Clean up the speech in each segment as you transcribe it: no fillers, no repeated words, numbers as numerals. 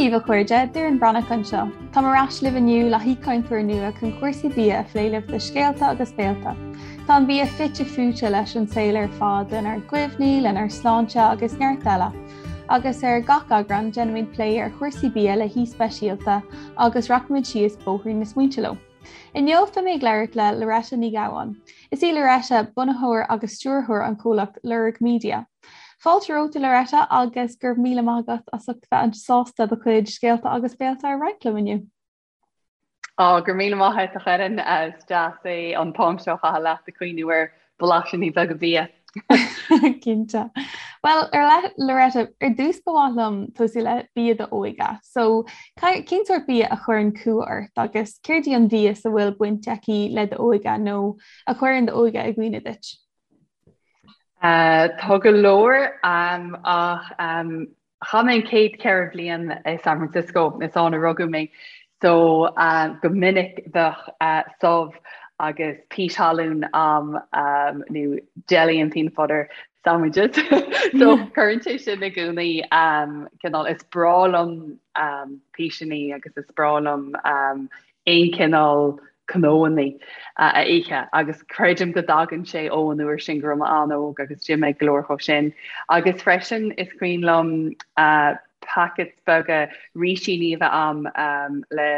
daoibh a chairde, Doireann Breathnach anseo. Táim ar ais libh inniu le haoichainteoir nua chun cúrsaí bia a phlé libh do Scéalta agus Béalta. Tá an bia fite fuaite leis an saol ar fad, lenár gcuimhní, lenár sláinte agus neart eile. Agus ar gach eagrán, déanaimid plé ar chúrsaí bia le haoi speisialta agus rachaimid síos bóithrín na smaointe leo. Inniu beidh mé ag labhairt le Loretta Ní Ghabháin. Is í Loretta bunaitheoir agus stiúrthóir an chomhlacht Lorg Media. Fáilte romhat a Loretta agus go raibh míle maith agat as ucht bheith sásta do chuid scéalta agus béalta a roinnt liom inniu. Á, go raibh míle maith agat a Dhoireann, is deas é an t-am seo a chaitheamh leat ag cuimhniú ar bhlaisíní beaga bia. Cinnte. Bhuel, ar Loretta, ar dtús ba mhaith liom tosú le bia d'óige. So, cén sórt bia a chuireann cumha ort agus céard í an mhias a bhfuil baint aici le d'óige nó a chuireann d'óige i gcuimhne duit? Uh, tá go leor um, ach um, Chaith mé an chéad cheithre bhliain i San Francisco, is ann a rugadh mé, so go minic bheadh subh agus pís thalún a'm nó jelly and peanut butter sandwiches. So cuireann sé sin i gcónaí cineál, is breá liom píseanna agus is breá liom aon chineál cnónna a ithe agus creidim go dtagann sé ó an uair sin go raibh mé an-óg agus d'ith mé go leor dhó sin. Agus freisin is cuimhin liom packets beaga rísíní a bheith a'm le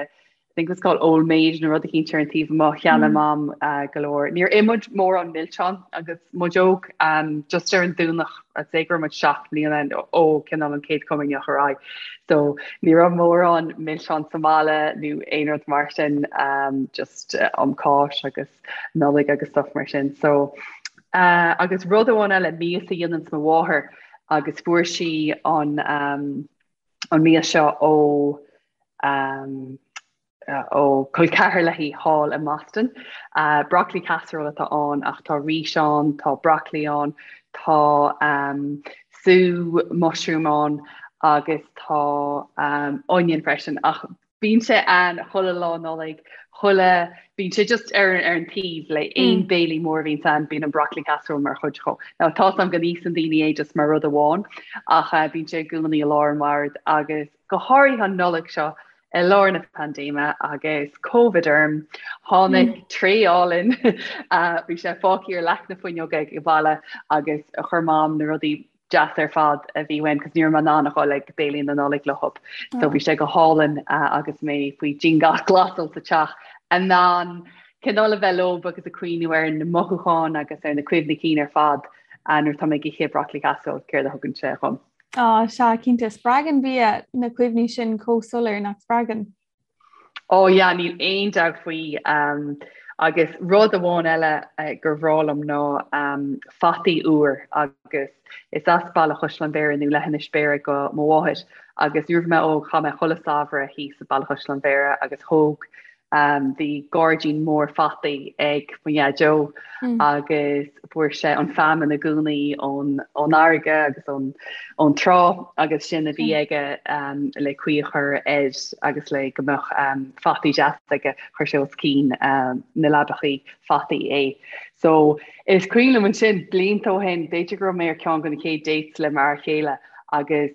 I think it was called Old Maid nó rud eicínt ar an taobh amuigh, cheannaigh Mam go leor. Níor ith muid mórán milseán agus muid óg, just ar an Domhnach, I'd say go raibh muid 7 mbliana ó cineál an chéad chomaoineach ar aghaidh. So ní raibh mórán milseán sa mbaile nó aon rud mar sin, just um Cáisc agus Nollaig agus stuff mar sin. So uh, agus rud amháin eile mias a dhéananns mo mháthair agus fuair sí an um, an mias seo ó um, ó col ceathar léi thall i mBoston. Broccoli casserole atá ann ach tá rís ann, tá broccoli ann, tá sú mushroom ann agus tá onion freisin ach bíonn sé ann chuile lá Nollaig, chuile, bíonn sé just ar ar an taobh le aon béilí mór a bhíonns ann, bíonn an broccoli casserole mar chuid dhó. Now tá 's a'm go n-íosann daoine é just mar rud amháin ach bíonn sé i gcónaí i lár an bhoird agus go háirithe an Nollaig seo I lár na paindéime agus Covid orm, tháinig tray álainn, bhí sé fágtha ar leac na fuinneoige ag baile agus chuir Mam na rudaí deasa ar fad a bhí uaim cos ní raibh mé in ann a dhul ag béilí na Nollag leo. So bhí sé go hálainn agus mé faoi dianghlasáil sa teach in ann cineál a bheith leo agus ag cuimhniú ar na mothúcháin agus ar na cuimhní cinn ar fad nuair atá mé ag ithe broccoli casserole, céard a thugann sé dhom. Á, sea, cinnte. Spreagann bia na cuimhní sin chomh soiléir, nach spreagann? Ó, yeah, níl aon dabht faoi. Agus rud amháin eile gur bhreá liom ná fataí úr agus is as Baile Chaisleáin Bhéarra nó Leithinis Bhéarra do mo mháthair agus nuair a bhí mé óg chaith mé chuile samhradh thíos i Baile Chaisleáin Bhéarra agus thóg Bhí gairdín mór fataí ag mo dhaideo agus fuair sé an feamainn i gcónaí ón fharraige agus ón trá agus sin a bhí aige le caoi a chur air agus le go mbeadh fataí deas aige, chuir sé os cionn na leabachaí fataí é. So is cuimhin liom ansin blianta ó shin, b'fhéidir go raibh mé ar ceann de na chéad dates le m'fhear chéile agus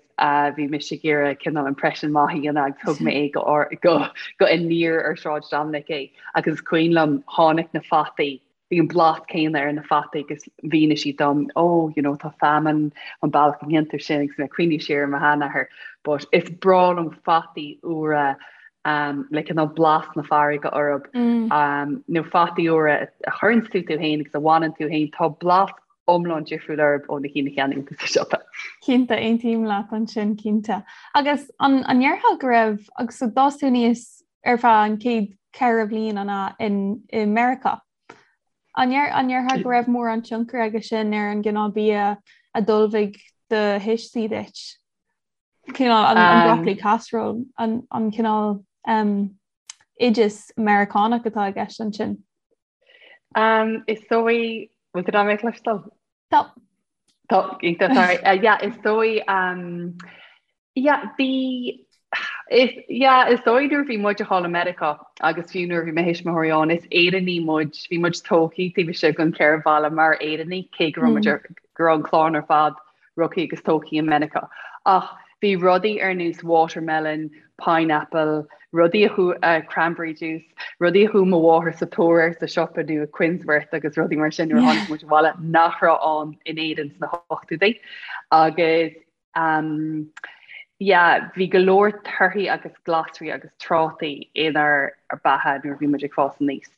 bhí mise ag iarraidh cineál impression maith a dhéanamh agus thug mé é go go go Aniar ar Sráid Dominic é agus is cuimhin liom tháinig na fataí, bhí an blas céanna ar na fataí agus mhínigh sí dom oh you know tá feamainn an bealach a ndéantar sin agus mé ag cuimhniú siar ar mo sheanathair but is breá liom fataí úra um, le cineál blas na farraige orthu mm. um, nó fataí úra a chuireann tú tú féin agus a bhaineann tú féin tá blas iomlán difriúil orthu ó na cinn a cheannaíonn tú sa siopa. Cinnte, aontaím leat ansin, cinnte. Agus an an ndéarfá go raibh, agus so d'fhás tú aníos ar feadh an chéad cheithre bhliain an ea in i Meiriceá. An ndeir an ndéarfá go raibh mórán tionchar aige sin ar an gcineál bia a d'ullmhaigh do thuistí duit? Cineál an an broccoli casserole, an an cineál um, oideas Meiriceánach atá i gceist ansin. Um, is dóigh, bhfuil tú mé cloisteáil? Tá. Tá, iontach, sorry. Uh, yeah, is dóigh, um, yeah, bhí, is, yeah, is dóigh nuair a bhí muid thall i Meiriceá agus fiú nuair a bhí mo thuismitheoirí ann, is Éireannaigh muid, bhí muid tógtha taobh istigh den cheithre bhalla mar Éireannaigh, cé go raibh muid ar, go raibh an clann ar fad rugtha agus tógtha i Meiriceá. Ach Bhí rudaí ar nós watermelon, pineapple, rudaí a chuaigh, cranberry juice, rudaí a chuaigh mo mháthair sa tóir air sa siopa nó i Quinnsworth agus rudaí mar sin nuair a tháinig muid abhaile nach raibh ann in Éirinn sna hochtóidí. Agus um, yeah, bhí go leor torthaí agus glasraí agus trátaí inár beatha nuair a bhí muid ag fás aníos.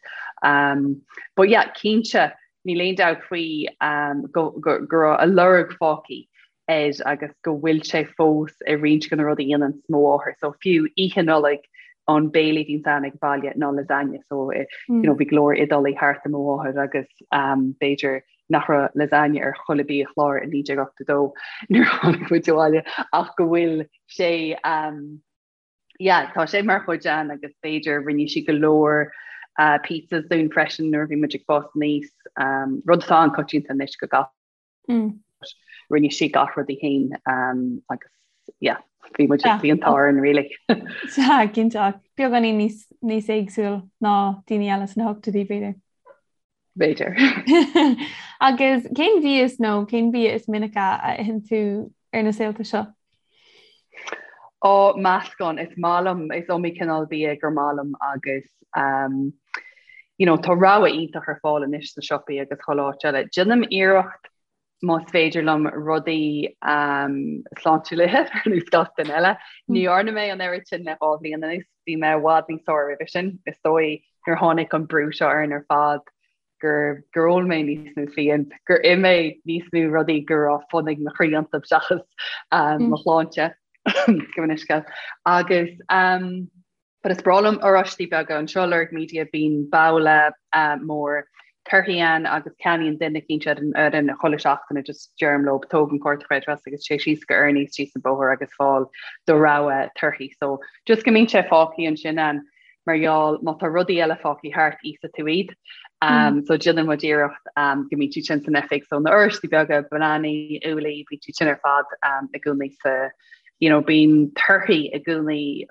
Um, but yeah, cinnte, níl aon dabht faoi um, go, go, go raibh a lorg fágtha air agus go bhfuil sé fós i roinnt de na rudaí a dhéananns mo mháthair. So fiú Oíche Nollag an béile a bhíonns ann ag baile ná lasagne. So eh, you know, bhí go leor Iodálaigh thart ar mo mháthair agus um, b'fhéidir nach raibh lasagne ar chuile biachlár i 1982 nuair a tháinig muid abhaile ach go bhfuil sé um, yeah, tá sé mar chuid ann agus b'fhéidir rinne sí go leor uh, pizzas dúinn freisin nuair a bhí muid ag fás aníos um, rud atá an-choitianta anois go gach Mm. Rinne sí gach rud í féin um, agus yeah, bhí muid bhí an t-ádh orainn really. Sea, cinnte ach beagáinín níos níos éagsúil ná daoine eile sna hochtóidí b'fhéidir. B'fhéidir. Agus cén mhias nó cén bia is minice a itheann tú ar na saolta seo? Ó, meascán, is maith liom, is iomaí cineál bia gur maith liom agus um, you know, tá rogha iontach ar fáil anois sna siopaí agus chuile áit eile. Déanaim iarracht más féidir liom rudaí um, sláintiúla a ithe ar nós gach duine eile. Ní dhearna mé an oiread sin le 2 bhliain anuas, bhí mé i bhfad níos fearr roimhe sin. Is dóigh nuair a tháinig an brú seo orainn ar fad gur gur ól mé níos mó fíon, gur ith mé níos mó rudaí go raibh fonn ag mo chroí iontu seachas um, mo shláinte gabh mo leithscéal. Agus um, but is breá liom oráistí beaga anseo Lorg Media bíonn babhla uh, mór torthaí ann agus ceannaíonn duine eicínt ar an fhoireann chuile seachtain just deirim leo tóg an cárta creidmheasa agus téigh síos go Ernie's síos an bóthar agus fáil do rogha torthaí. So just go mbíonn sé fágtha ansin ann. mar gheall má tá rudaí eile fágtha thart íosfaidh tú iad. Um, so déanann muid iarracht um, go mbíonn siad sin san oifig, so na oráistí beaga, bananaí, úllaí, bíonn siad sin ar fad um, i gcónaí sa you know, bíonn torthaí i gcónaí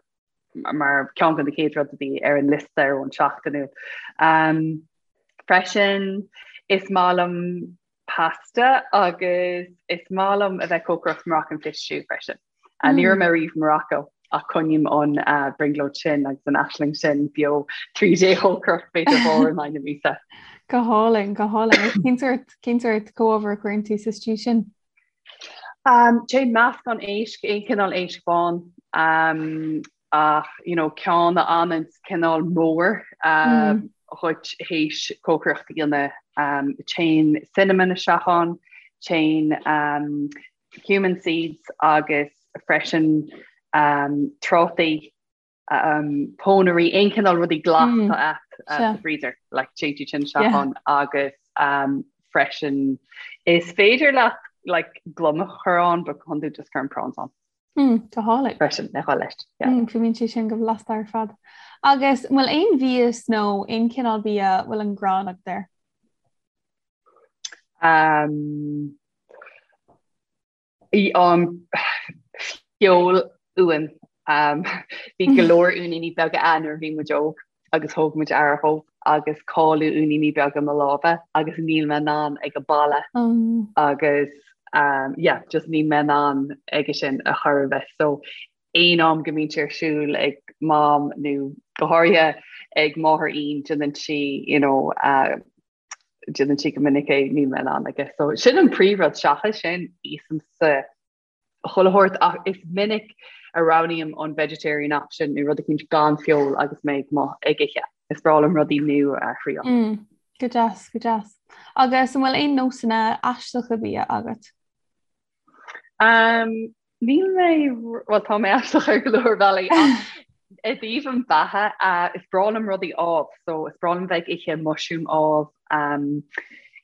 mar ceann de na chéad rud a bhí ar an liosta ar an seachtainiúil. Um, freisin is maith liom pasta agus is maith liom a bheith cócaireacht Moroccan fish stew freisin. Mm. Ní raibh mé riamh i Morocco ach coinním an uh, brionglóid sin agus an aisling sin beo tríd é chócaireacht b'fhéidir uair in aghaidh na míosa. Go hálainn, go hálainn. Cén sórt cén sórt comhábhar a chuireann tú sa stew sin? Um, téann meascán éisc, aon cineál éisc bán, um, ach you know, ceann a fhanann cineál mór um, dhuit théis cócaireacht a dhéanamh. Um, téann cinnamon isteach ann, téann um, cumin seeds agus freisin um, trátaí, um, pónairí, aon cineál rudaí glas mm. atá agat uh, sa freezer, like téann siad sin isteach ann agus um, freisin is féidir leat like gliomach a chur ann, but chun just cuirim prawns ann. Mm, go hálainn. Freisin le dhul leis. Yeah. Mm, fuaimníonn sé sin go blasta ar fad. Agus an bhfuil aon mhias nó aon chineál bia a bhfuil an ghráin agat air? Um, i, um, feoil uan. Um, bhí go leor uainíní beaga ann nuair a bhí muid óg. agus thóg muid aire dhóibh agus cailleadh uainíní beaga mo láimhe agus níl mé in ann ag a boladh agus um, yeah, just níl mé in ann aige sin a chor ar bith. So aon am go mbíonn sé ar siúl ag mam nó go háirithe ag máthair Ian déanann sí you know, uh, déanann sí go minic é níl mé in ann aige. So sin an príomhrud seachas sin íosaimse chuile shórt ach is minic a roghnaím an vegetarian option nó rud eicínt gan feoil agus mé ag mo ag ithe. Is breá liom rudaí nua a thriail. Mm, go deas, go deas. Agus an bhfuil aon nósanna aisteacha bia agat? Um, níl mé, well tá mé aisteach ar go leor bealaí ach i dtaobh an bheatha uh, is breá liom rudaí amh, so is breá liom bheith ag ithe mushroom amh, um,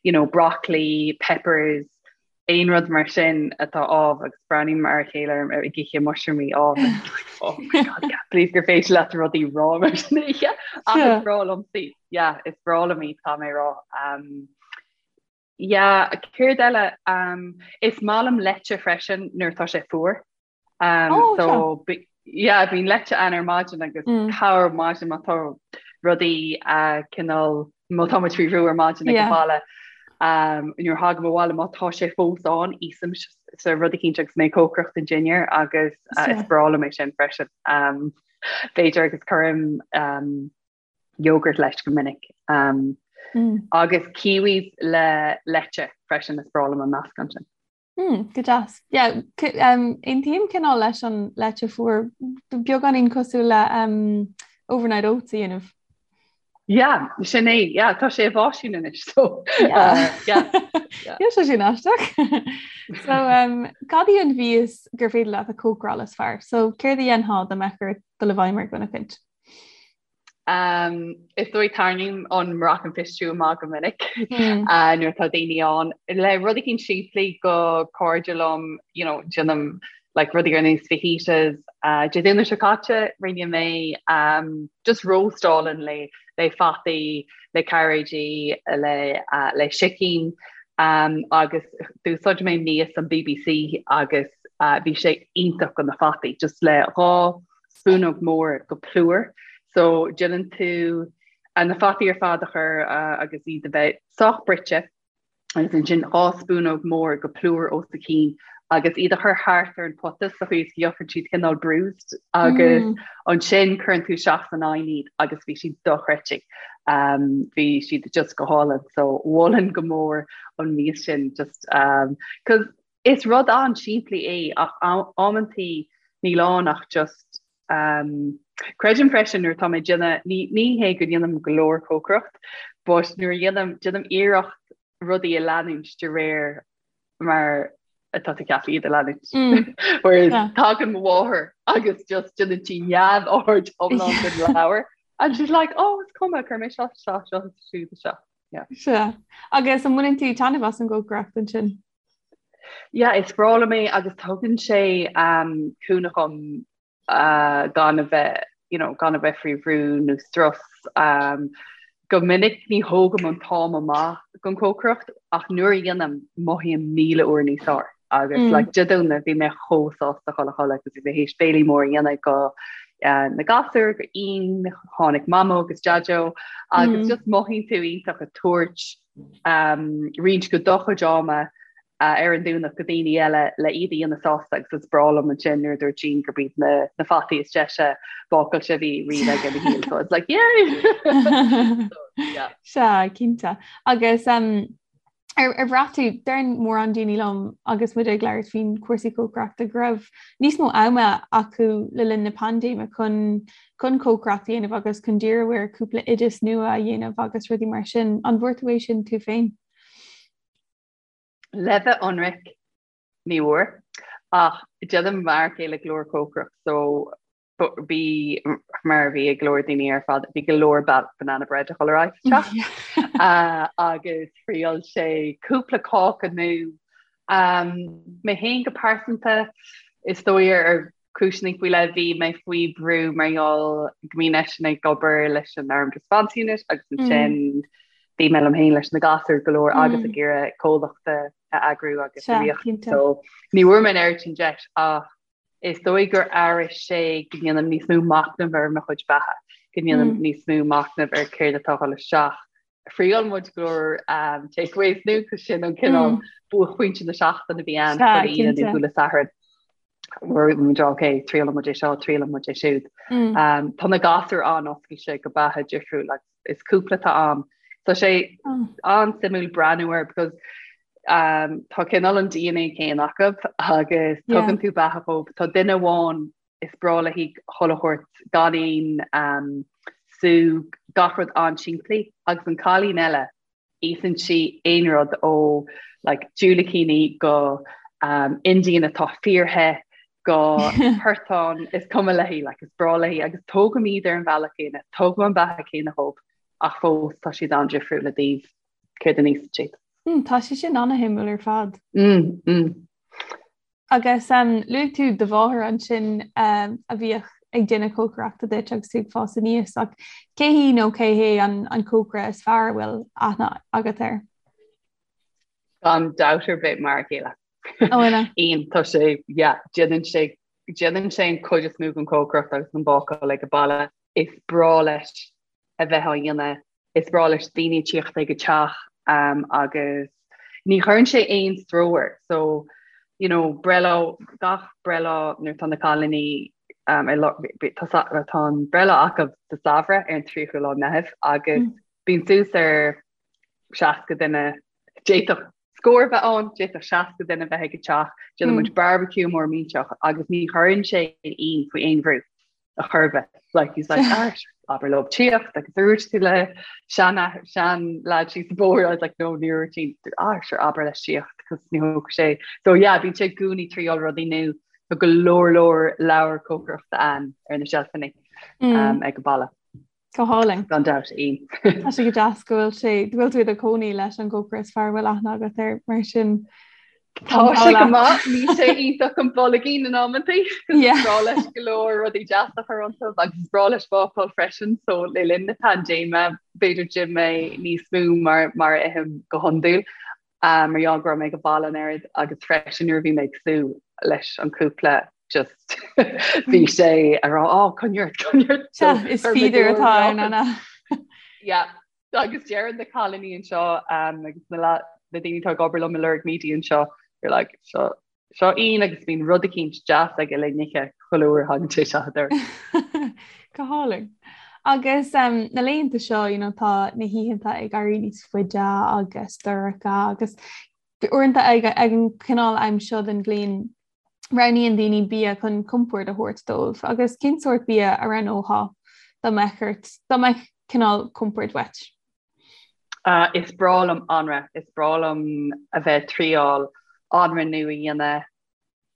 you know, broccoli, peppers, aon rud mar sin atá amh agus breathnaím ar a chéile ag ithe mushroomaí amh and like, oh my god, I can't believe gur féidir leat rudaí rá mar sin a ithe. Ach is breá liom iad. Yeah, is breá liom iad tá mé rá. Um, yeah, céard eile? Um, is maith liom leite freisin nuair atá sé fuar. Um, oh, so yeah, bíonn leite ann ar maidin agus mm. corr maidin má tá rudaí uh, cineál má tá muid faoi bhrú ar maidin ag an baile. Nuair a thagaim abhaile má tá sé fós ann, íosaimse rud eicínt agus mé ag cócaireacht don dinnéar agus is breá liom é sin freisin. B'fhéidir agus cuirim yogurt leis go minic. Agus kiwis le leite freisin is breá liom an meascán sin. Mm, go deas. Yeah, um, aontaím cineál leis an leite fuar beagáinín cosúil le um, overnight oats a dhéanamh. Yeah, sin é, yeah, tá sé i bhfaisean anois so yeah. Uh, yeah. yeah. yeah, sé sin aisteach. so um, cad í an mhias gur féidir leat a chócaráil is fearr? So céard a dhéanfá dá mbeadh ort dul i bhfeidhm ar dhuine éicint? Um, is dóigh tarraingím an Moroccan fish stew amach go minic mm. uh, nuair atá daoine ann. Le rud eicínt simplí do chairde liom, you know, déanaim like rudaí ar nós fajitas. Uh, Dé Domhnaigh seo caite rinne mé um, just roast álainn le le fataí, le cairéidí, le, uh, le sicín um, agus d'úsáid mé mias an BBC agus uh, bhí sé iontach do na fataí, just le 2 spúnóg mór go plúr. So déanann tú na fataí ar fad a chur agus iad a bheith sách bruite agus ansin 2 spúnóg mór go plúr os a chionn agus iad a chur thart ar an pota sa chaoi is go gheobhann siad cineál bruised agus mm. ansin cuireann tú isteach san oigheann iad agus bhí siad dochreidte. Um, bhí siad just go hálainn so mholfainn go mór an mias sin just um, cause Is rud an-simplí é ach amantaí níl ann ach just um, creidim freisin nuair atá mé ag déanamh, ní, ní hé go ndéanaim go leor cócaireacht, but nuair a dhéanaim, déanaim iarracht rudaí a leanúint de réir mar atá tú ceaptha iad a leanúint. Mm. Whereas yeah. tagann mo mháthair agus just déanann sí neamhaird iomlán den leabhar and she's like, oh, is cuma, cuir mé seo seo seo siúd seo. Yeah. Sea. Agus an mbaineann tú taitneamh as an gcócaireacht ansin? Yeah, is breá liom é agus tugann sé um, cúnamh dom uh, gan a bheith you know, gan a bheith faoi bhrú nó strus. Um, go minic ní thógaim an t-am amach don chócaireacht ach nuair a dhéanaim mothaím 1000 uair níos fearr. Agus mm. like, Dé Domhnaigh bhí mé chomh sásta dhul a chodladh agus bhí mé théis béilí mór a dhéanamh go uh, na gasúir go Ian, tháinig Mamó agus Deaideo agus mm. just mothaíonn tú iontach ag tabhairt um, roinnt go do chuid ama uh, ar an Domhnach go daoine eile le iad a dhéanamh sásta agus is breá liom ansin nuair a dúirt Jean gurb iad na, na fataí is deise bácáilte a bhí riamh aige ina shaol. So it's like, yay! so, yeah. Sea, cinnte. Agus um, ar, ar bhraith tú, deireann mórán daoine liom agus muid ag labhairt faoin cúrsaí cócaireachta go raibh níos mó ama acu le linn na paindéime chun chun cócaireacht a dhéanamh agus chun díriú ar cúpla oideas nua a dhéanamh agus rudaí mar sin. An bhfuair tú é sin tú féin? Le bheith ionraic, ní bhfuair, ach déanaim m'fhear céile go leor cócaireacht so bhí mar a bhí ag go leor daoine ar fad, bhí go leor banana bread a dhul ar aghaidh sa teach agus thriail sé cúpla cáca nua. Mé féin go pearsanta, is dóigh ar cúiseanna faoi leith, bhí mé faoi bhrú mar gheall go mbíonn eisean ag obair leis an Armed Response Unit agus ansin bhí mé liom féin leis na gasúir go leor agus ag iarraidh comhlacht a eagrú agus a riar. So ní bhfuair mé an oiread sin deis ach is dóigh gur athraigh sé go ndéanaim níos mó machnaimh ar mo chuid beatha, go ndéanaim níos mó machnaimh ar céard atá ag dul isteach. Thriail muid go leor um, takeaways nua cos sin an cineál buaicphointe na seachtaine a bhí ann chuile Aoine nó chuile Satharn. Muid ok, triaileann muid é seo, triaileann muid é siúd. Um, tá na gasúir an-oscailte go beatha difriúil agus is cúpla atá ann. Tá sé an-suimiúil breathnú air because um, tá cineál an DNA céanna acu agus tugann tú beatha dhóibh. Tá duine amháin is breá léi chuile shórt gan aon um, sú gach rud an-simplí agus an cailín eile íosann sí aon rud ó like, diúilicíní go um, Indian atá fíorthe go portán is cuma léi like, is breá léi agus tógaim iad ar an bhealach céanna, tógaim an beatha céanna dhóibh ach fós tá siad an-difriúil i dtaobh céard a n-íosann siad. Mm, tá sé sin an-shuimiúil ar fad. Mm, mm. Agus um, luaigh tú do mháthair ansin um, a bhíodh ag déanamh cócaireachta duit agus tú ag fás aníos ach cé hí nó cé hé an, an cócaire is fearr a bhfuil aithne agat air? Gan dabht ar bith m'fhear céile. Ó ina? Ian, tá sé, yeah, déanann sé déanann sé an chuid is mó den chócaireacht agus an bácáil ag an baile. Is breá leis a bheith á dhéanamh, is breá leis daoine tíocht ag an teach. Agus ní chuireann sé aon stró air. So, you know, breithlá, gach breithlá nuair atá na cailíní tá an breithlá acu sa samhradh ar an 30ú lá Meitheamh agus bíonn suas ar 60 duine, d'fhéadfadh scór bheith ann, d'fhéadfadh 60 duine bheith ag an teach, déanann muid barbecue mór millteach agus ní chuireann sé Ian faoi aon bhrú a chor ar bith. Like, he's like, ah, abair leo tíocht agus dúirt tú le sean sean lad síos an bóthar, I was like, no, níor dúirt Ian, ah, sure, abair leis tíocht cos ní thógfaidh sé. So yeah, bíonn sé i gcónaí ag triáil rudaí nua, tá go leor leor leabhar cócaireachta ann ar na seilfeanna um, ag an baile. Go hálainn. Gan dabht, Ian. Tá sé go deas go bhfuil sé, go bhfuil tú i do chónaí leis an gcócaire is fearr a bhfuil aithne agat air, mar sin Tá sé go maith, níl sé iontach an boilgín in amantaí, is breá leis go leor rudaí deasa a chur iontu agus is breá leis bácáil freisin, so le linn na paindéime b'fhéidir d'ith mé níos mó mar mar a ithim go hiondúil. Mar gheall go raibh mé ag an baile an oiread agus freisin nuair a bhí mé ag sú leis an cúpla just bhí sé ag rá á coinnigh ort coinnigh ort. So is feeder atá ann an ea? Yeah agus deireann na cailíní anseo agus na na daoine atá ag obair liom i Lorg Media anseo they're like seo Seo Ian agus bíonn rud eicínt deas aige le n-ithe chuile uair a thagann sé isteach an doras. Go hálainn. Agus na laethanta seo, you know, tá na hoícheanta ag éirí níos faide agus dorcha agus uaireanta ag an cineál am seo den bhliain roghnaíonn daoine bia chun compord a thabhairt dóibh. Agus cén sórt bia a roghnófá dá mbeadh ort, dá mbeadh cineál compord uait? Is breá liom anraith, is breá liom a bheith ag triáil anraith nua a dhéanamh.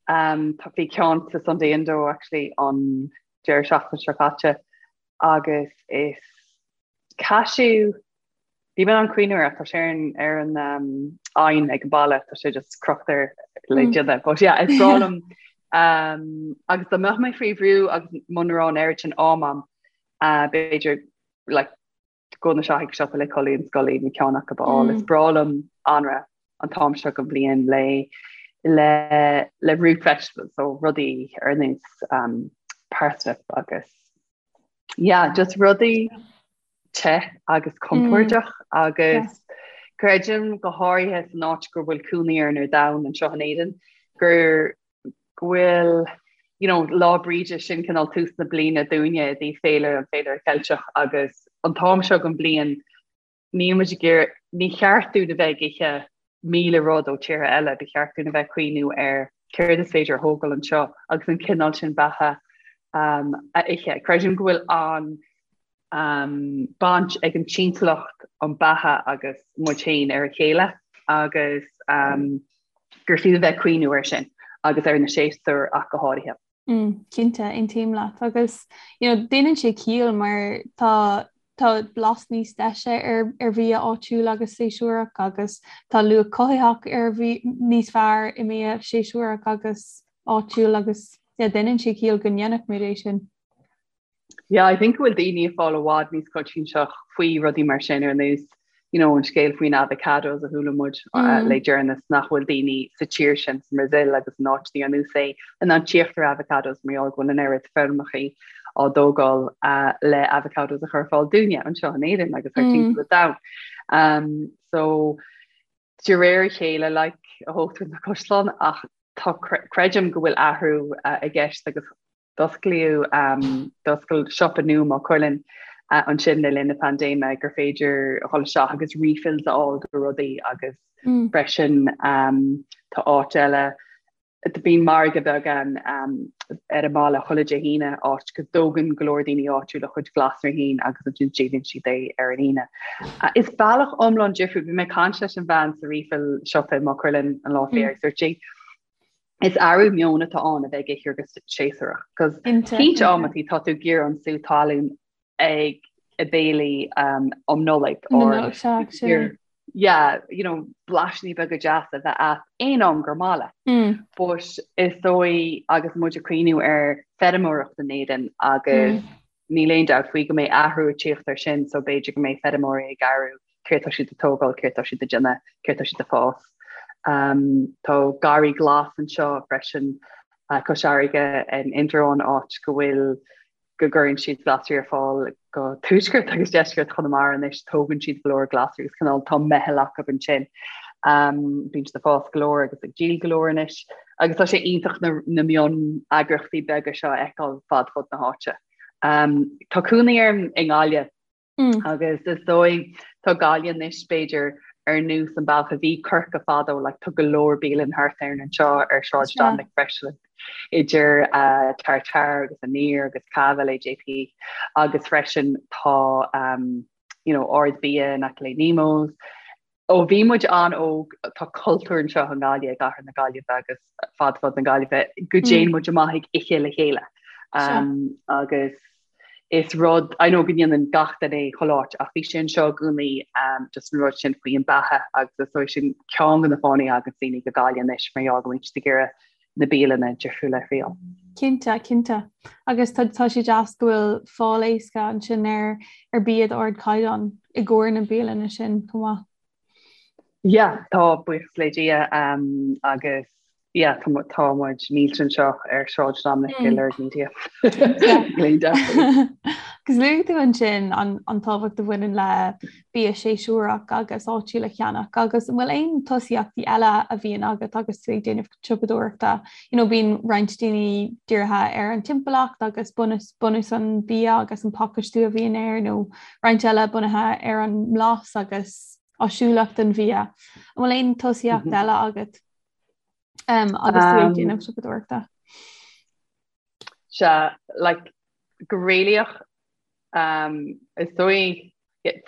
Tá bhí ceann sa Sunday Indo actually an deireadh seachtaine seo caite agus is cashew níl mé in ann cuimhniú air ach tá sé ar an ar an oigheann ag an baile, tá sé just crochta le déanamh. But yeah, is breá liom agus dá mbeadh mé faoi bhrú agus muna raibh an oiread sin am a'm, b'fhéidir like dul isteach ag siopa le culaith na scoile nó ceann acu a fháil. Is breá liom anraith an t-am seo den bhliain le le le root vegetables so rudaí ar nós um, parsnip agus yeah, just rudaí te agus compordach mm. agus yeah. creidim go háirithe san áit go bhfuil cónaí orainn ar domhan anseo in Éirinn gur go bhfuil you know, Lá Bríde sin cineál tús na bliana dúinne i dtaobh féile an féilire Ceilteach agus an t-am seo den bhliain níl muid ag iarraidh, ní cheart dúinn a bheith ag ithe 1000 rud ó tíortha eile, ba cheart dúinn a bheith ag cuimhniú ar céard is féidir a thógáil anseo agus an cineál sin beatha um, a ithe. Creidim go bhfuil an baint ag an timpeallacht, an beatha agus muid féin ar a chéile agus gur fiú a bheith ag cuimhniú air sin agus ar na séasúir ach go háirithe. Mm, cinnte, aontaím leat agus you know, déanann sé ciall mar tá tá blas níos deise ar ar bhia áitiúil agus séasúrach agus tá luach cothaitheach ar bhia níos fearr i mbia séasúrach agus áitiúil agus yeah, déanann sé ciall go ndéanfadh muid é sin. Yeah, I think go bhfuil daoine ag fáil i bhfad níos coinsiasach faoi rudaí mar sin ar nós you know, an scéal faoin avocados a chuala muid uh, mm. le deireanas nach bhfuil daoine sa tír sin sa mBrasaíl agus in áiteanna ar nós é in ann tíocht ar avocados mar gheall go bhfuil an oiread feirmeacha á dtógáil uh, le avocados a chur ar fáil dúinne anseo in Éirinn agus thar mm. timpeall an domhain. Um, so de réir a chéile like, a thógtar na caisleáin ach tá creidim go bhfuil athrú uh, i gceist agus D'osclaíodh d'oscail siopa nua i Maigh Cuilinn ansin le linn na paindéime gur féidir a dhul isteach agus refills a fháil do rudaí agus freisin tá áit eile bíonn margadh beag ann ar an mbaile chuile Dé hAoine áit go dtógann go leor daoine áitiúla a chuid glasraí féin agus ansin díolann siad é ar an Aoine. Is bealach iomlán difriúil, bhí mé ag caint leis an bhean sa refill siopa i Maigh Cuilinn an lá faoi agus dúirt sí Is athrú meoin atá ann a bheith ag ithe go séasúrach, cos cinnte amantaí tá tú ag iarraidh an sú talún ag a béilí um, um Nollaig or yeah, you know, blaisíní beaga deasa a bheith agat aon am gur maith leat. Mm. But is dóigh agus muid ag cuimhniú ar feirmeoireacht in Éirinn agus mm. Níl aon dabht faoi go mbeidh athrú ag tíocht air sin so b'fhéidir go mbeidh feirmeoirí ag athrú céard tá siad ag tógáil, céard tá siad ag déanamh, céard tá siad ag fás. Tá garraí glas anseo freisin cois fharraige in Indreabhán áit go bhfuil. go gcuireann siad glasraí ar fáil go tuaisceart agus deisceart Chonamara anois, tógann siad go leor glasraí agus cineál tá meitheal acu ansin. Um, bíonn siad ag fás go leor agus ag díol go leor anois agus tá sé iontach na, na mion-eagraíochtaí beaga seo a fheiceáil fad fud na háite. Um, tá cónaí orm i nGaillimh Mm. Agus is dóigh tá Gaillimh anois b'fhéidir ar nós an bealach a bhí Corcaigh fadó, like, tá go leor bialann thart orainn anseo ar Sráid Dominic freisin idir uh, Tartare agus Aniar agus Cava le JP agus freisin tá um, you know, Ard Bia in aice le Nemo's. Ó bhí muid an-óg, tá cultúr anseo i nGaillimh, i gcathair na Gaillimhe agus fad fud na Gaillimhe, go dtéann muid amach ag ithe le chéile. Um, agus is rud, I know go ndéanann gach duine é chuile áit, ach bhí sé anseo i gcónaí um, just an rud sin faoi an beatha agus is dóigh sin ceann de na fáthanna a thagann daoine go Gaillimh anois mar gheall go mbíonn siad ag iarraidh na bialanna difriúla a thriail. Cinnte, cinnte. Agus tá tá sé deas go bhfuil fáil éasca ansin ar ar bia d'ardchaighdeán i gcomhair na bialanna sin chomh maith. Yeah, tá buíochas le Dia um, agus yeah, tá tá muid millte anseo ar Sráid Dominic i Lorg Media. Agus luaigh tú ansin an, an tábhacht a bhaineann le bia séasúrach agus áitiúil a cheannach agus an bhfuil aon tosaíochtaí eile a bhíonn agat agus tú ag déanamh siopadóireachta? You know, bíonn roinnt daoine dírithe ar an timpeallacht agus bunús, bunús an bia agus an pacáistiú a bhíonn air nó roinnt eile bunaithe ar an mblas agus áisiúlacht an bhia. An bhfuil aon tosaíocht mm -hmm. eile agat um, agus tú ag déanamh siopadóireachta? Sea, like, go réalaíoch um, is dóigh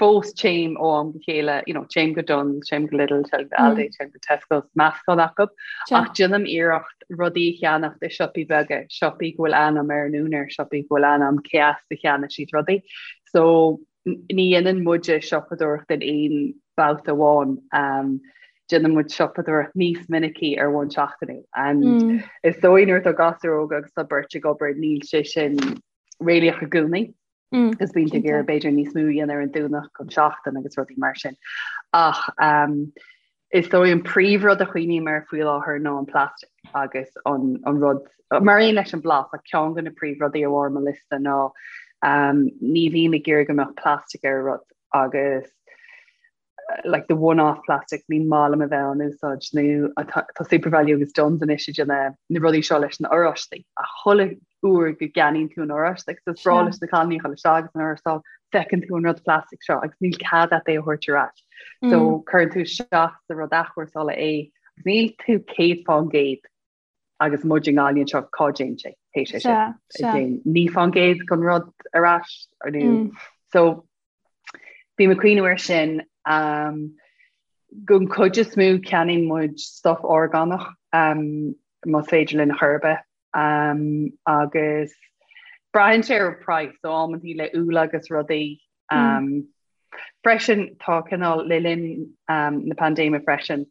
fós téim ó am go chéile, you know, téim go Dunnes, téim go Lidl, téim go Aldi, mm. téim go Tesco, meascán acu, ach déanaim iarracht rudaí a cheannacht i siopaí beaga, siopaí go bhfuil ainm ar an úinéir, siopaí go bhfuil ainm cé as a cheannaigh siad rudaí. So ní dhéanann muide siopadóireacht in aon babhta amháin. Um, déanann muid siopadóireacht níos minicí ar bhonn seachtainiúil. And mm. is dóigh nuair atá gasúir óga agus tá beirt ag obair níl sé sin réalaíoch i gcónaí. Mm, agus bíonn tú ag iarraidh b'fhéidir níos mó a dhéanamh ar an Domhnach an seachtain agus rudaí mar sin. Ach um, is dóigh an príomhrud a chuimhním air faoi láthair ná an plastic agus an, an rud mar aon leis an blas ach ceann de na príomhrudaí ar bharr mo liosta ná um, ní bhím ag iarraidh go mbeadh plastic ar rud agus like the one-off plastic ní maith liom a bheith á n-úsáid nó tá Supervalu agus Dunnes anois ag déanamh na rudaí seo leis na oráistí ach chuile uair go gceannaíonn tú an oráiste agus is breá leis na cailíní a dhul isteach agus an oráiste feiceann tú an rud plastic seo agus níl cead agat é a thabhairt ar ais. So mm. cuireann tú isteach sa rud athchúrsála é agus níl tú 100% agus muid i nGaillimh anseo cá dtéann sé pé sé sin 9% den rud ar ais ar nó mm. so bím ag cuimhniú ar sin um, don chuid is mó ceannaíonn muid stuff orgánach um, más féidir linn chor ar bith um, agus braitheann sé ar price so amantaí le úll agus rudaí mm. um, mm. freisin tá cineál le linn um, na paindéime freisin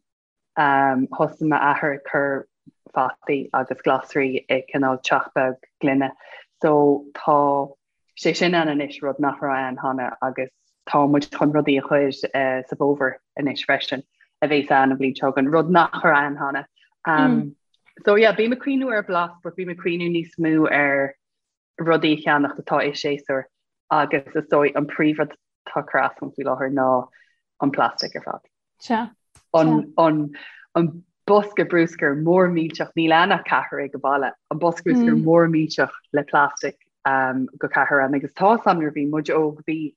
Thosaigh m'athair ag cur fataí agus glasraí i cineál teach beag gloine so tá sé sin ann anois, rud nach raibh ann cheana agus tá muid chun rudaí a chur sa bhfómhar anois freisin a bheas ann an bhliain seo chugainn, rud nach raibh ann cheana. So yeah, bím ag cuimhniú ar blas but bím ag cuimhniú níos mó ar rudaí a cheannacht atá i séasúr agus is dóigh an príomhrud atá ag cur as dom faoi láthair ná an plastic ar fad. Sea. An, an, an bosca bruscair mór millteach, níl ann ach ceathrar ag an baile, an bosca bruscair mm. mór millteach le plastic um, go ceathrar ann agus tá sam nuair bhí muid óg bhí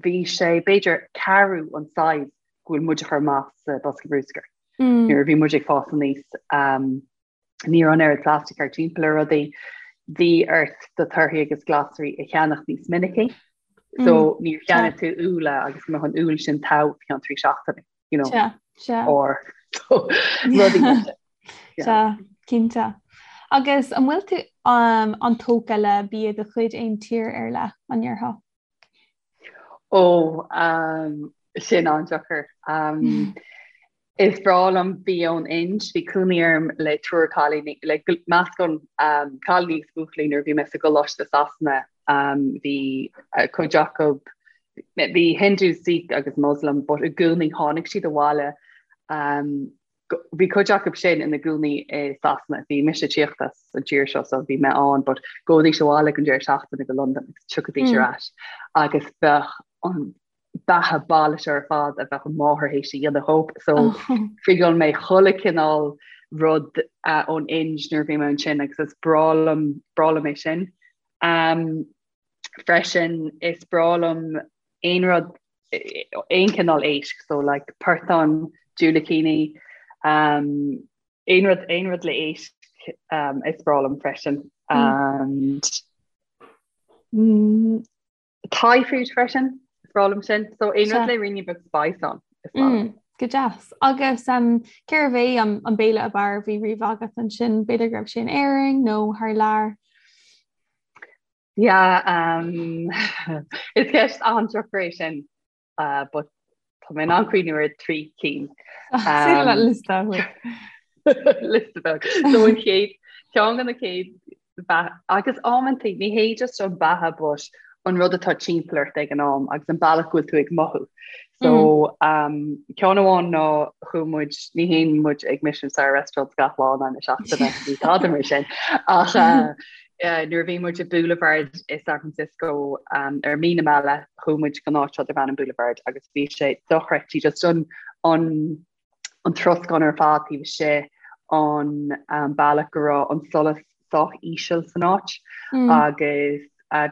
bhí sé b'fhéidir ceathrú an size go bhfuil muid a chur amach sa bosca bruscair. Mm. Nuair a bhí muid ag fás aníos um, Ní raibh an oiread plastic thart timpeall ar rudaí. Bhí ort do torthaí agus glasraí a cheannach níos minicí. So mm, níor cheannaigh tú úlla agus go mbeadh an úll sin togha ceann 3 seachtaine, you know. Sea, sea. Or so, rudaí mar sin. Sea, cinnte. Agus an bhfuil tú um, an-tógtha le bia de chuid aon tír ar leith, an ndéarfá? Ó, um, sin an-deacair. Um, is breá liom bia ón Ind, bhí cónaí orm le triúr cailíní, le meascán um, cailíní agus buachaillí nuair a bhí mé sa gcoláiste Sasana. Um, bhí uh, cuid acu bhí Hindu, Sikh agus Muslim, but i gcónaí tháinig siad abhaile um, Bhí cuid acu sin ina gcónaí i Sasana, bhí mise ag tíocht as an tír seo so bhí mé ann but gabhaidís abhaile don deireadh seachtaine go Londain agus tiocfaidís ar ais agus bheadh an beatha baile seo ar fad a bheadh an máthair théis a dhéanamh dhób so thriail mé chuile cineál rud ón Ind nuair a bhí mé ansin agus is breá liom breá liom é sin. Um, freisin is breá liom aon rud aon cineál éisc so like portán, diúilicíní, um, aon rud aon rud le éisc um, is breá liom freisin. And mm, Thai food freisin, is breá liom sin. So aon rud le ruainnín beag spice ann, is breá liom. Mm, go deas. Agus um, cérbh é an, an béile ab fhearr a bhí riamh agat ansin? B'fhéidir go raibh sé in Éirinn nó thar lear? Yeah, um, is ceist an-deacair é sin. Uh, but tá mé in ann cuimhniú ar thrí cinn. Liosta Liosta beag. So an chéad ceann de na chéad agus amantaí ní hé just an beatha but an rud atá timpeall ort ag an am agus an bealach go bhfuil tú ag mothú. So mm. um, ceann amháin ná chuaigh muid ní théann muid ag Michelin star restaurants gach lá na seachtaine ní tada mar sin ach uh, Nuair a bhí muid i Boulevard i San Francisco ar mí na meala, chuaigh muid go áit seo darb ainm Boulevard agus bhí sé dochreidte just an an an troscán ar fad taobh istigh, an bealach go raibh an solas sách íseal san áit agus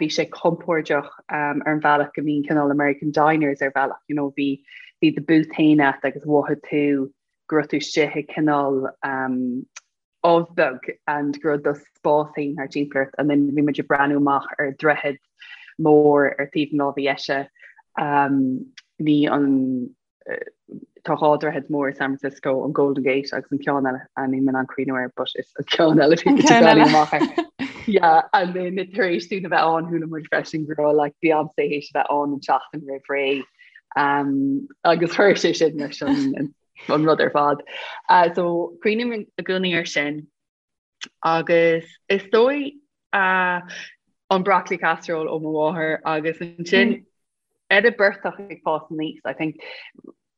bhí sé compordach ar an bhealach go mbíonn cineál American diners ar bhealach, you know, bhí bhí do booth féin agat agus mhothaigh tú go raibh tú istigh i cineál ubh beag and go raibh do spás féin thart timpeall ort and then bhí muid ag breathnú amach ar droichead mór ar taobh na láimhe dheise um, ní an tá dhá droichead mór i San Francisco an Golden Gate agus an ceann eile a níl mé in ann cuimhniú air but is an ceann eile bhí muid ag breathnú amach air. Yeah, and then tar éis dúinn a bheith ann chuala muid freisin go raibh like Beyoncé théis a bheith ann an tseachtain roimh ré um, agus chuir sé sin leis an an rud ar fad. So cuimhním i gcónaí ar sin agus is dóigh an broccoli casserole ó mo mháthair agus ansin mm. ar an bportach ag fás aníos, I think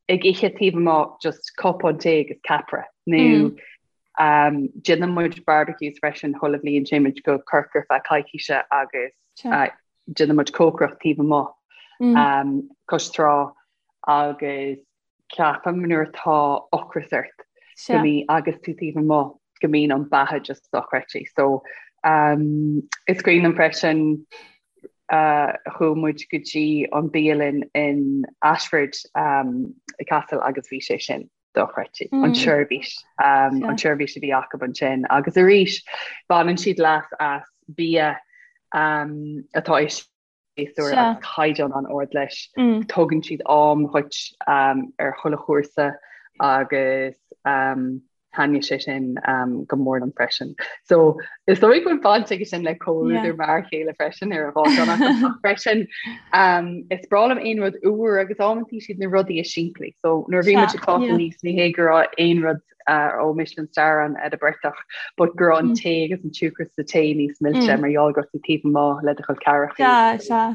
ag ithe taobh amuigh just cupán tae agus ceapaire nó mm. um, déanann muid barbecues freisin chuile bhliain téann muid go Corcaigh ar feadh coicíse agus uh, déanann muid cócaireacht taobh amuigh mm. um, cois trá agus ceapaim nuair atá ocras ort go mbíonn agus tú taobh amuigh go mbíonn an beatha just dochreidte. So um, is cuimhin liom freisin uh, chuaigh muid go dtí an bialann in Ashford um, Castle agus bhí sé sin dochreidte mm. an seirbhís um, an seirbhís a bhí acu ansin agus arís baineann siad leas as bia um, atá séasúr agus caighdeán an-ard leis. Tugann siad am dhuit ar chuile chúrsa agus thaitnigh sé sin go mór liom freisin. So is dóigh go bhfuil baint aige sin le comhluadar m'fhear chéile freisin ar an dhá cheann acu ach freisin is breá liom aon rud úr agus amantaí siad na rudaí is simplí. So nuair a bhí muid ag fás aníos ní hé go raibh aon rud ó Michelin star ann ar an bportach, but go raibh an tae agus an siúcra sa tae níos milse mar gheall go raibh tú taobh amuigh le do chol ceathracha. Sea, sea.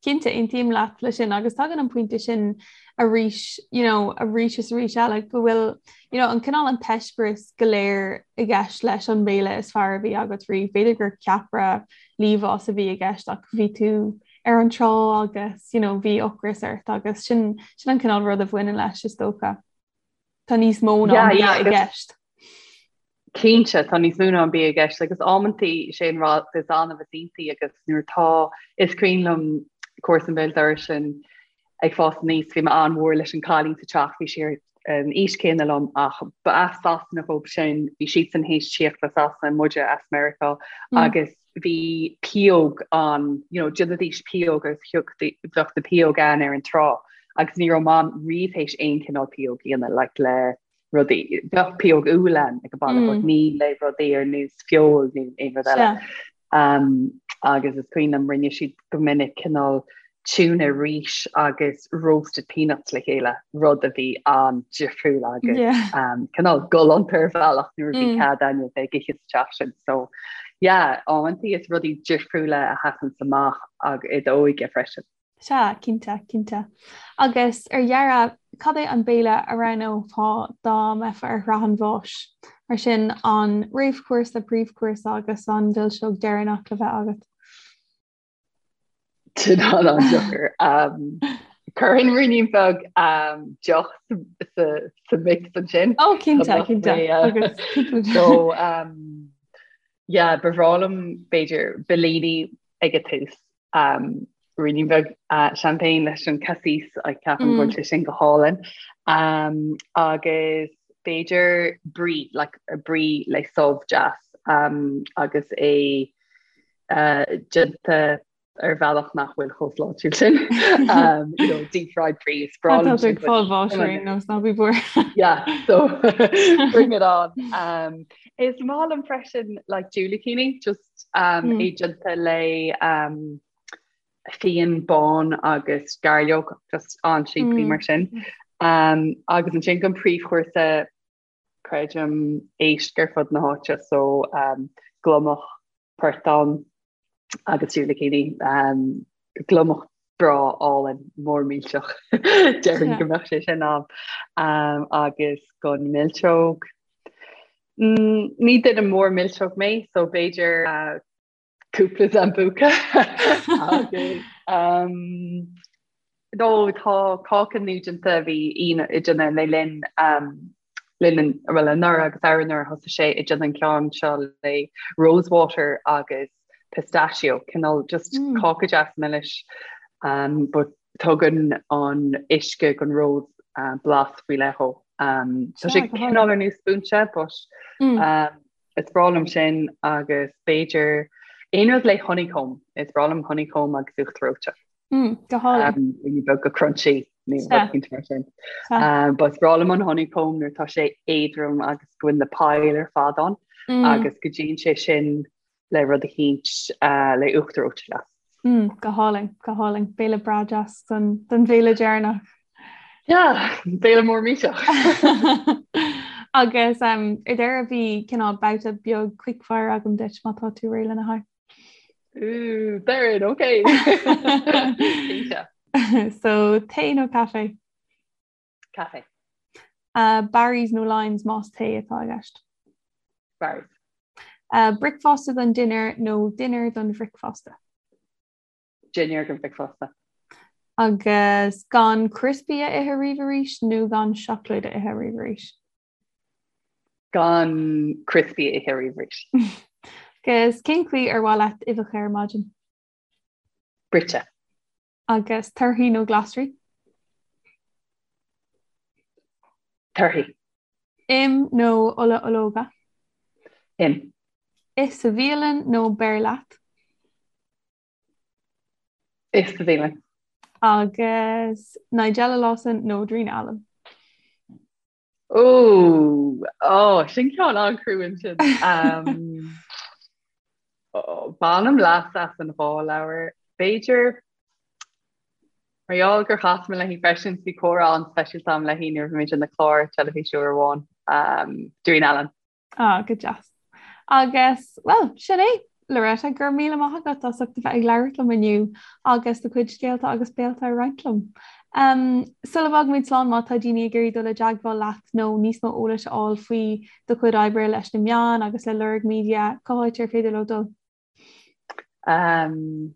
Cinnte, aontaím leat le sin agus tagann an pointe sin arís, you know, arís is arís eile go bhfuil, you know, an cineál an t-eispéireas go léir i gceist leis an mbéile is fearr a bhí agat riamh. B'fhéidir gur ceapaire liamhás a bhí i gceist ach bhí tú ar an trá agus, you know, bhí ocras ort agus sin, sin an cineál rud a bhaineann leis is dócha. Tá níos mó ná an bia i gceist. Cinnte, tá níos mó ná an bia i gceist agus amantaí sé an rud is annamh is iontaí agus nuair atá, is cuimhin liom comharsan béal dorais linn ag fás aníos, bhí mé an-mhór leis an cailín sa teach, bhí sí ar an aois céanna liom ach ba as Sasana dhób sin, bhí siadsan théis tíocht as Sasana, muide as Meiriceá agus bhí pióg ann, you know, déanaidís pióg agus thiocfadh, bheadh na pióg ann ar an trá agus ní raibh Mam riamh théis aon cineál pióg a dhéanamh, like le rudaí, bheadh pióg úll ann ag an baile but ní le rudaí ar nós feoil nó aon rud eile. Um, agus is cuimhin liom rinne siad go minic cineál tuna rís agus roasted peanuts le chéile, rud a bhí an-difriúil agus yeah. cineál galánta ar bhealach nuair a bhí mm. cead againne bheith ag ithe sa teach sin. So yeah, amantaí is rudaí difriúla a sheasann amach ag i d'óige freisin. Sea, cinnte, cinnte. Agus ar dheireadh, cad é an béile a roghnófá dá mbeifeá ar shraith an bháis? Mar sin, an réamhchúrsa, príomhchúrsa agus an mhilseog deireanach le bheith agat. Sin an-deacair. Chuirfinn ruainnín beag deoch sa mix ansin. Ó cinnte, cinnte. So yeah, ba bhreá liom b'fhéidir Bellini ag an tús. Ruainnín beag champagne leis an cassis, ceapaim go bhfuil sé sin go hálainn. Agus b'fhéidir brie, like brie le subh deas agus é déanta ar bhealach nach bhfuil chomh sláintiúil sin. You know, deep fried brie is breá liom sin. Tá tú ag fáil bháis ar aon nós, ná bí buartha. Yeah, so bring it on. Um, is maith liom freisin like diúilicíní, just um, mm. é déanta le um, fíon bán agus gairleog, just an-simplí mm. mar sin. Um, agus ansin don príomhchúrsa creidim éisc ar fud na háite so um, gliomach portán agus diúilicíní um, gliomach breá álainn mór millteach déarfainn go mbeadh sé sin ann um, agus don mhilseog mm, ní duine mór milseog mé so b'fhéidir uh, cúpla sambuca agus um, nó tá cáca nua déanta bhí Ian ag déanamh le linn um, linn well anuraidh agus arú-anuraidh thosaigh sé ag déanamh an ceann seo le rosewater agus pistachio cineál just mm. cáca deas milis um, but tugann an uisce gon rose uh, blas faoi leith dhó. Um, tá sé cineál ar nós spúinse but mm. um, Is breá liom sin agus b'fhéidir aon rud le honeycomb. Is breá liom honeycomb agus uachtar reoite. Mm, go hálainn. Um, beag go crunchy nó rud éicint mar sin. Um, but is breá liom an honeycomb nuair tá sé éadrom agus go bhfuil na poill ar fad ann mm. agus go dtéann sé sin le rud eicínt uh, le uachtar reoite deas. Mm, go hálainn, go hálainn. Béile breá deas don, don bhéile deireanach. Yeah, béile mór millteach. Agus um, ar deireadh bhí cineál babhta beag quickfire agam duit má tá tú réidh lena haghaidh. Ooh, Darren, okay. So tae nó caife? Caife. Uh, Barry's nó Lyons más tae atá i gceist? Barry's. Uh, bricfeasta don dinnéar nó dinnéar don bhricfeasta? Dinnéar don bhricfeasta. Agus gan crispy a ithe riamh arís nó gan seacláid a ithe riamh arís? Gan crispy a ithe riamh arís. Agus cén chaoi ar mhaith leat uibheacha ar maidin? Bruite. Agus torthaí nó glasraí? Torthaí. Im nó ola ológa? Im. Ith sa bhialann nó beir leat? Ith sa bhialann. Agus Nigella Lawson nó Darina Allen? Ó, ó, sin ceann an-chrua ansin. Um, ó, bainim leas as an dhá leabhar. B'fhéidir mar gheall gur chas mé léi freisin bhí comhrá an-speisialta agam léi nuair a bhí muid ina clár teilifíse uair amháin. Um, Darina Allen. Ah, go deas. Agus, well, sin é, Loretta, go raibh míle maith agat as ucht a bheith ag labhairt liom inniu agus do chuid scéalta agus béalta a roinnt liom. Um, sula bhfágaimid slán má tá daoine ag iarraidh dul i dteagmháil leat nó níos mó eolais a fháil faoi do chuid oibre leis na meáin agus le Lorg Media, cá háit ar féidir leo dul? Um,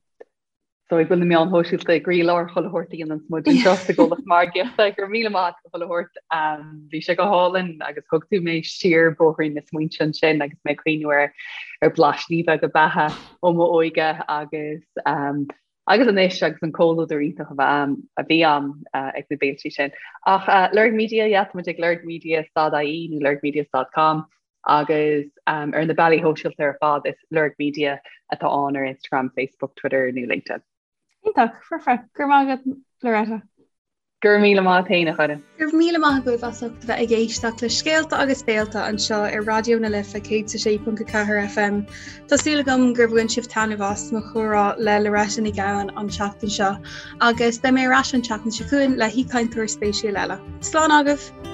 so go bhfuil na meáin shóisialta i gcroílár chuile shórt a dhéanann muid anseo sa gcomhlacht margaíochta go raibh míle maith agat chuile shórt um, bhí sé go hálainn agus thug tú mé siar bóithrín na smaointe ansin agus mé ag cuimhniú ar ar blaisíní beaga beatha ó mo óige agus um, agus anois agus an comhluadar iontach a bheith a bhí ann uh, ag na béiltí sin. Ach uh, Lorg Media, yeah, tá muid ag lorgmedia.ie nó lorgmedia.com agus um, ar na bealaí shóisialta ar fad is Lorg Media atá ann ar Instagram, Facebook, Twitter nó LinkedIn. Iontach, foirfe, go raibh maith agat Loretta. Go raibh míle maith agat féin a Choire. Go raibh míle maith agaibh as ucht a bheith ag éisteacht le Scéalta agus Béalta anseo ar Raidió na Life 106.4 FM. Tá súil agam gur bhain sibh taitneamh as mo chomhrá le Loretta Ní Ghabhann an tseachtain seo agus beidh mé ar ais an tseachtain seo chugainn le haoichainteoir spéisiúil eile. Slán agaibh!